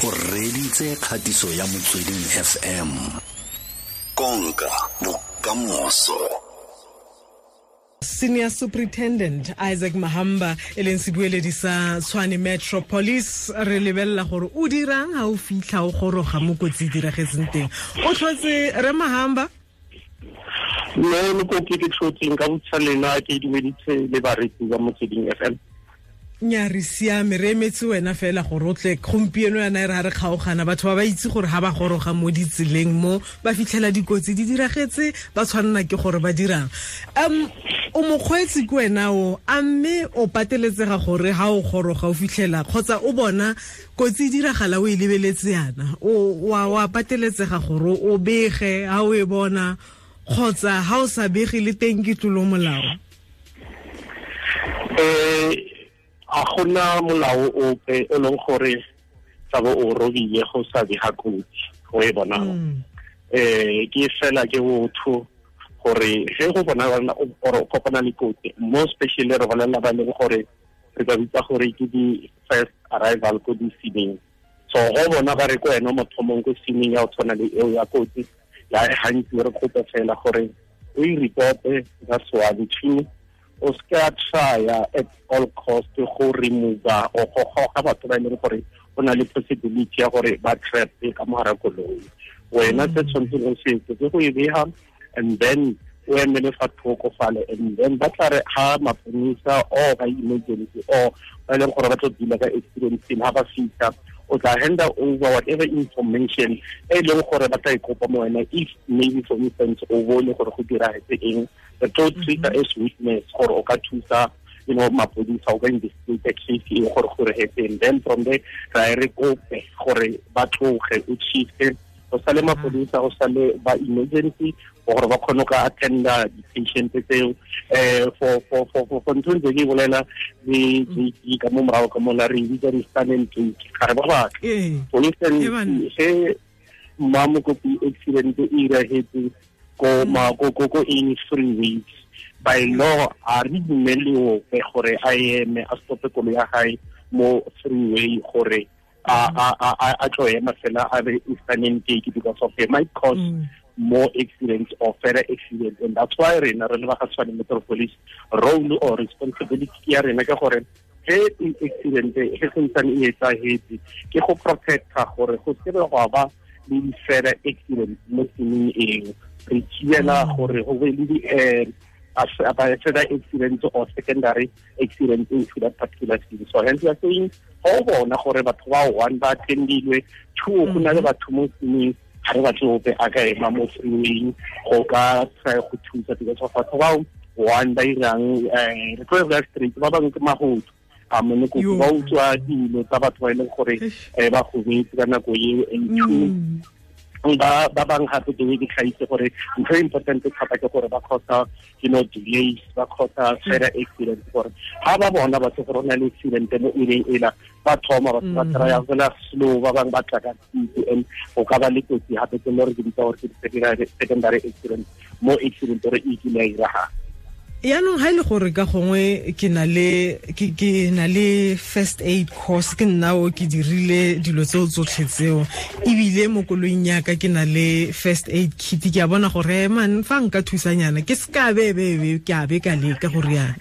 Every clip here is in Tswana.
O reditse kgatiso ya Motsweding FM. Konka bokamoso. Senior Superintendent Isaac Mahamba e leng sebueledi sa Tshwane Metro Police, re lebelela gore o dirang ha o fitlha o goroga mo kotsi e diragetseng teng. O tlhotse re Mahamba? Mme mokopi, ke tlhotseng ka botsa lena, ke dumeditse le baretsi ba Motsweding FM. Nya, re siame, re emetse wena fela gore o tle gompieno. Yana e re ga re kgaogana, batho ba ba itse gore ga ba goroga mo ditseleng mo ba fitlhela dikotsi di diragetse, ba tshwanela ke gore ba dirang. O mokgweetsi ke wena o, a mme o pateletsega gore ga o goroga o fitlhela kgotsa o bona kotsi e diragala, o e lebeletse yana, wa pateletsega gore o bege ga o e bona, kgotsa ga o sa bege le teng ke tlolo molao? A gona molao ope o leng gore tsa bo o robile go sa bega kotsi go e bonang. Ke fela ke botho gore ge go bona or o kopana le kotsi, mo especially re bolelela ba leng gore re ka bitsa gore ke di-first arrival ko di-sceneng. So go bona ba re ko wena mothomong ko sceneng ya go tshwana le eo ya kotsi ya gantsi, re kope fela gore o e reporte. That's one. Two, o se ka trya at all cost go remove or go goga batho ba e leng gore o na le possibility ya gore ba trap ka mogara koloi. Wena se tshwanetseng o se etse ke go e bega and then o emele fa thoko fale, and then ba tla re ha maponisa or ba emergency or ba e leng gore ba tlo deala ka accident scene, ha ba fitlha, o tla hand over whatever information e leng gore ba tla e kopa mo wena. If maybe, for instance, o bone gore go diragetse eng, re tlo treat as witness gore o ka thusa mapodisa o ka investigate case e gore go diragetseng. Then from there ra e re kope gore ba tloge, o shifte go sale mapodisa, go sale ba emergency gore ba kgone go attenda di-patient tseo. For ntho ntse ke bolela le JP ka mo morago ka mola, re bitsa di-stun and take, ga re ba batla. For instance, ge mma mokopi accident e iragetse ko ma ko ko ko in freeways, by law a re dumele ope gore a eme, a stope koloi ya gae mo freeway gore a tlo ema fela a be stun and take, because of it might cause more accidents or further accidents. And that's why rena re le ba ga Tshwane Metro Police, role or responsibility ya rena ke gore ge accident ge santsane e etsahetse, ke go protecta gore go se be gwa ba le di-further accidents mo tseleng eo. Re thibela gore go be le di further accidents or secondary accidents into that particular scene. So hence we are saying, go bona gore batho ba, one, ba attendilwe, two, go na le batho mo sceneng, ga re batle ope a ka ema mo freewayng go ka try go thusa, because of batho bao, one, ba irang, re tlo re straight, ba bangwe ke magodu a mone kopi, ba utswa dilo tsa batho ba e leng gore ba gobetse ka nako eo. And two, ba bang gape the way ke tlhaitse gore ntho e important thata ke gore ba causa delays, ba causa further accident, gore ga ba bona batho gore o na le accident mo eleng ela, ba thoma batho ba try fela slow, ba bangwe ba tla ka speed, and go ka ba le kotsi gape tse le re ke bitsa gore ke di-secondary accident mo accident gore e kile ya iragala. Yaanong ga e le gore ka gongwe ke na le first aid course, ke nna o ke dirile dilo tseo tsotlhe tseo, ebile mo koloing yaka ke na le first aid kit, ke a bona gore man fa nka thusanyana ke se ka bebebe ke a be ka leka gore yana.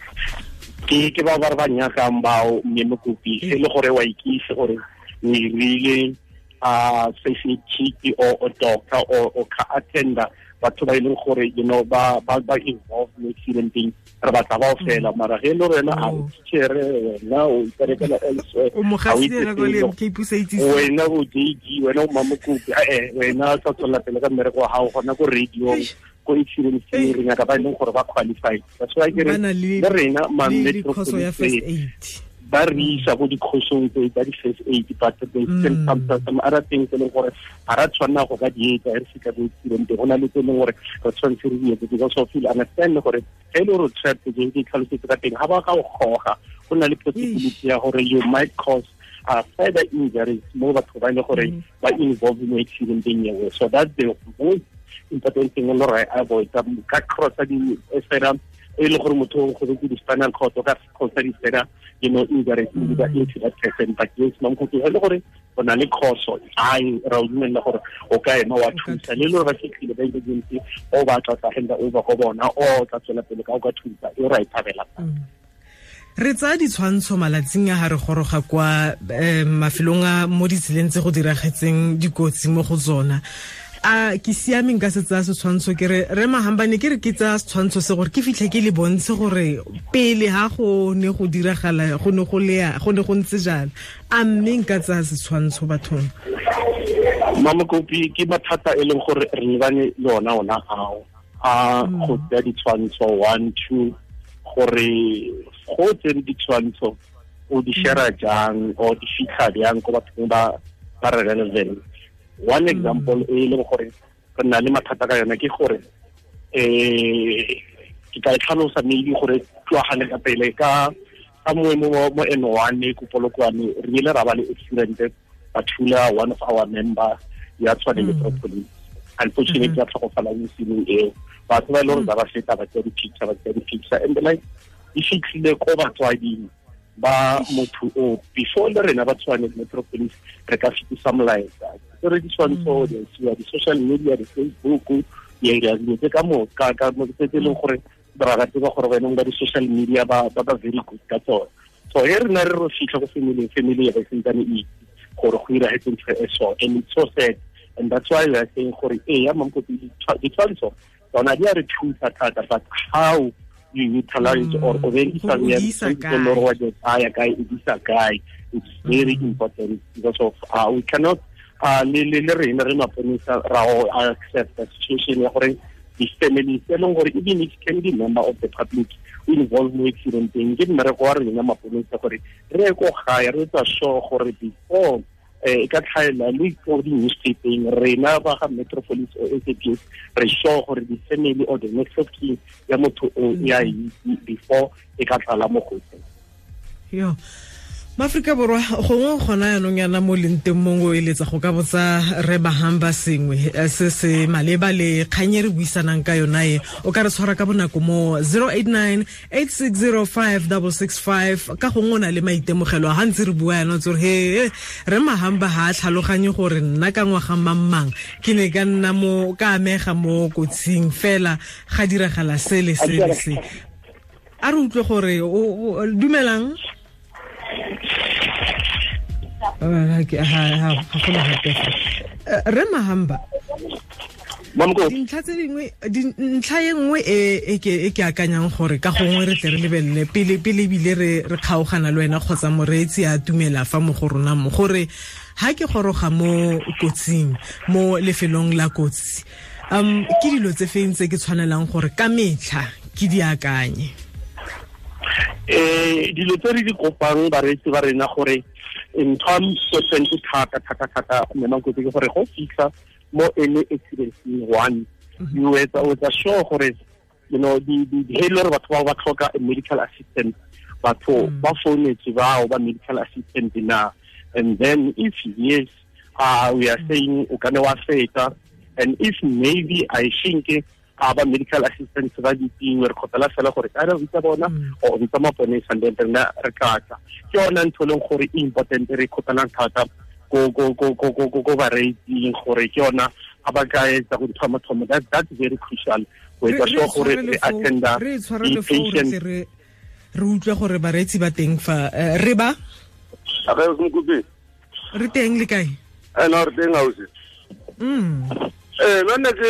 Ke ba ba re ba nyakang bao, mme mokopi, e le gore wa ikise gore o irile a first aid kit or a doctor or ka attenda batho ba e leng gore ba involved mo accidenteng, re batla bao fela. Mara ge e le wena a o teachere, wena o iperekela elsewhere, O mogasela ko le MK Pusa itse. Wena o JG, wena o mamokopi, wena sa tswelela pele ka mmereko wa gago gona ko radio. Ko accident scene re nyaka ba e leng gore ba qualified. That's why ke re Ba na le rena ma le Metro course ya Police first aid. ba re isa ko dikhosong tse tsa di-first aid, but there's still some other things e leng gore ga ra tshwanela go ka di etsa re fitlha ko accident. Go na le tse e leng gore re tshwanetse re di etse, because of you understand gore ge e le gore o trapped, je ke tlhalosetse ka teng, ga ba ka o goga, go na le possibility ya gore you might cause further injuries mo batho ba e leng gore ba involved mo accidenteng eo. So that's the most important thing e le gore avoid ka crossa di further E le gore motho o gobetse di-spinal cord o ka cause di-further, injuries into that person. But yes, Mamokopi, e le gore o na le khoso, ai ra o dumella gore o ka ema wa thusa le le ba fitlhile ba emergency o ba tla tla hand over go bona o tla tswela pele ka o ka thusa e ra e thabela. Re tsaya ditshwantsho malatsing a ha re goroga kwa mafelong a mo ditseleng tse go diragetseng dikotsi mo go tsona. A ke siameng ka se tsaya setshwantsho ke re re Mahamba ne ke re ke tsaya setshwantsho se gore ke fitlhe ke le bontshe gore pele ha go ne go diragala go ne go lea go ne go ntse jalo, a mme nka tsaya setshwantsho bathong? Mamokopi, ke mathata e leng gore re lebane le ona ao a go tsaya ditshwantsho 1 2 gore go tsere ditshwantsho o di share jang o di fitlha jang ko bathong ba relevant. One example e leng gore re na le mathata ka yona ke gore ke tla e tlhalosa maybe gore tloagane ka pele ka mo N1 ko Polokwane re ile ra ba le accident ba thula one of our member ya Tshwane Metro Police. Unfortunately ya tlhokofala mo scene eo, batho ba e leng gore ba feta ba tsaya di-picture and like e fitlhile ko batswading ba motho o before le rena ba Tshwane Metro Police re ka fetisa molaetsa. Re ditshwantsho di isiwa di-social media, di-Facebook, dilo tse ka moka ka tse e leng gore ra ba tseba gore bana ba di-social media ba very good ka tsone. So he rena re ro fitlha go family ya ba sentsane e itse gore go iragetse ntho e so, and it's so sad, and that's why we are saying gore e ya Mamokopi ditshwantsho tsona di a re thusa thata, but how you utilize or o berekisa kae, it's very important because of we cannot le rena re maponisa ra accept the situation ya gore di-families e leng gore even if can be member of the public o involve mo accidenteng, ke mmereko wa rena maponisa gore re ye ko gae re etsa sure gore before e ka tlhaela le ko di-newspapering rena ba ga Metro Police or SAPS re sure gore di-family or the next of kin ya motho o ya itse before e ka tlala mo gotseng. Yo Maaforika Borwa gongwe gona yanong yana mo leng teng mongwe o eletsa go ka botsa re Mahamba sengwe se se maleba le kgang e re buisanang ka yona e, o ka re tshwara ka bonako mo 089 8605 665 ka gongwe o na le maitemogelo a ga ntse re bua yana tse gore he re Mahamba ga a tlhaloganye gore nna ka ngwaga mang ke ne ka nna mo ka amega mo kotsing fela ga diragala se le se le se. A re utlwe gore o dumelang. Re Mahamba, dintlha tse dingwe, ntlha e nngwe e ke akanyang gore ka gongwe re tle re lebelele pele ebile re kgaogana le wena kgotsa moreetsi a tumela fa mo go rona mo gore ha ke goroga mo kotsing mo lefelong la kotsi, ke dilo tse feng tse ke tshwanelang gore ka metlha ke di akanye? Dilo tse re di kopang bareetsi ba rena gore ntho important thata thata thata Mamokopi ke gore go fitlha mo any accident one you etsa sure gore you know di he le gore batho ba tlhoka a medical assistant, batho ba founetse bao ba medical assistant na, and then if yes we are saying o ka ne wa feta, and if maybe I think ba medical assistants ba ditingwe re kgopela fela gore ka re bitsa bona or bitsa maponesa and then rena re tlatla. Ke yona ntho e leng gore e important re kgopelang thata ko bareetsing gore ke yona ga ba ka etsa go ntho ya mathomo, that's very crucial go etsa sure gore re attenda di-patient. Re utlwe gore bareetsi ba teng fa re ba re teng le kae? No, re teng ausi. Nna ke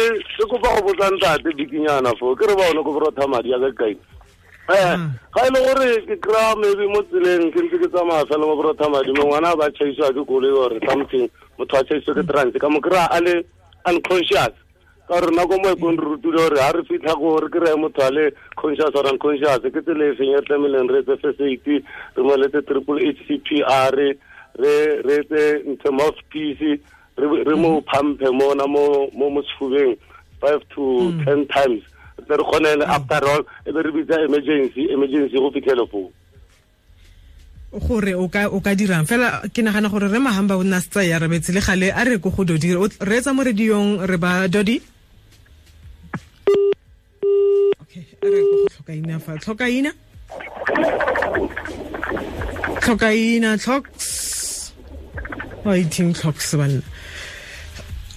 kopa go botsa ntate bikinyana fo ke re ba one ko borotha madi ya ka kae. Ga e le gore ke kry-a maybe mo tseleng ke ntse ke tsamaya fela mo borotha madi mo ngwana ba tšhaisiwa ke koloi or something, motho a tšhaisiwa ke trans ka mo kry-a a le unconscious, ka gore nako mo e kong re rutile gore ga re fitlha ko re kry-e motho a le conscious or unconscious ke tsela e feng e tlameileng re etse first aid, re mo letse triple H C P R, re etse ntho mouthpiece, re mo pumpe mona mo mo sefubeng 5 to 10 times re kgone after all e be re bitsa emergency go fitlhele foo gore o ka dirang fela. Ke nagana gore re Mahamba o nna setsa ya rabetse le gale a re ko go Dodi re etsa mo radiong re ba Dodi. Okay, re go tlhokaina fa tlhokaina tlhokaina tlhoks wa iting tlhoks banna.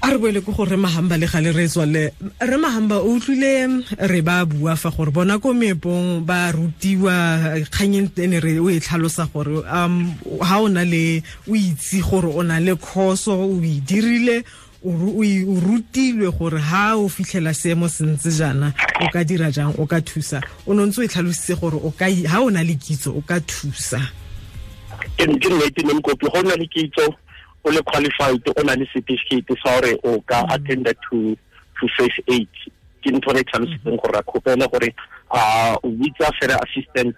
A re boele ko gore Mahamba le gale re tswale. Re Mahamba o utlwile re ba bua fa gore bona ko meepong ba rutiwa kganyeng ene re o e tlhalosa gore ha o na le o itse gore o na le khoso o e dirile o rutilwe gore ha o fitlhela seemo se ntse jaana o ka dira jang, o ka thusa. O no ntse o e tlhalositse gore o ka ha o na le kitso o ka thusa. Ke nnete ne Mokopi, go na le kitso, o le qualified, o na le certificate sa gore o ka attend to first aid. Ke ntho re tlhalositseng gore ra kgopela gore a o bitsa fela assistant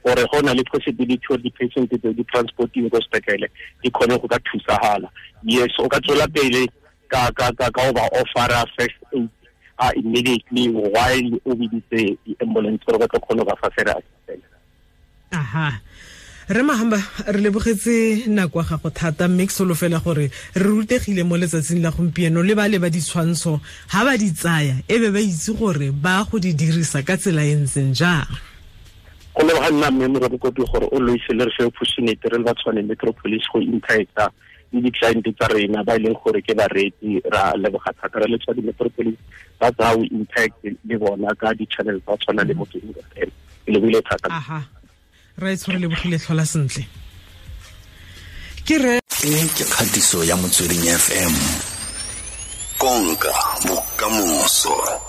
gore go na le possibility gore di-patient tse di transporting ko sepetlele di kgone go ka thusagala. Yes, o ka tswela pele ka ka o ba offera first aid immediately while o biditse di-ambulance gore ba tlo kgone go ba fa fela assistant. Aha. Re Mahamba, re lebogetse nako ya gago thata, mme ke solofela gore re rutegile mo letsatsing la gompieno le ba le ba ditshwantsho ha ba di tsaya e be ba itse gore ba go di dirisa ka tsela e ntseng jang. Go leboga nna mme Mokopi gore o loise le re fe opportunity re le ba Tshwane Metropolis go interacta le di-client tsa rena ba e leng gore ke bareetsi. Ra leboga thata re le Tshwane Metropolis ba tsaya o interact le bona ka di-channel tsa tshwana le Motsweding FM. Ke lebogile thata. Aha. Ra itshware lebogile, tlhola sentle. Ke re e ke kgatiso ya Motsweding FM. Konka bokamoso.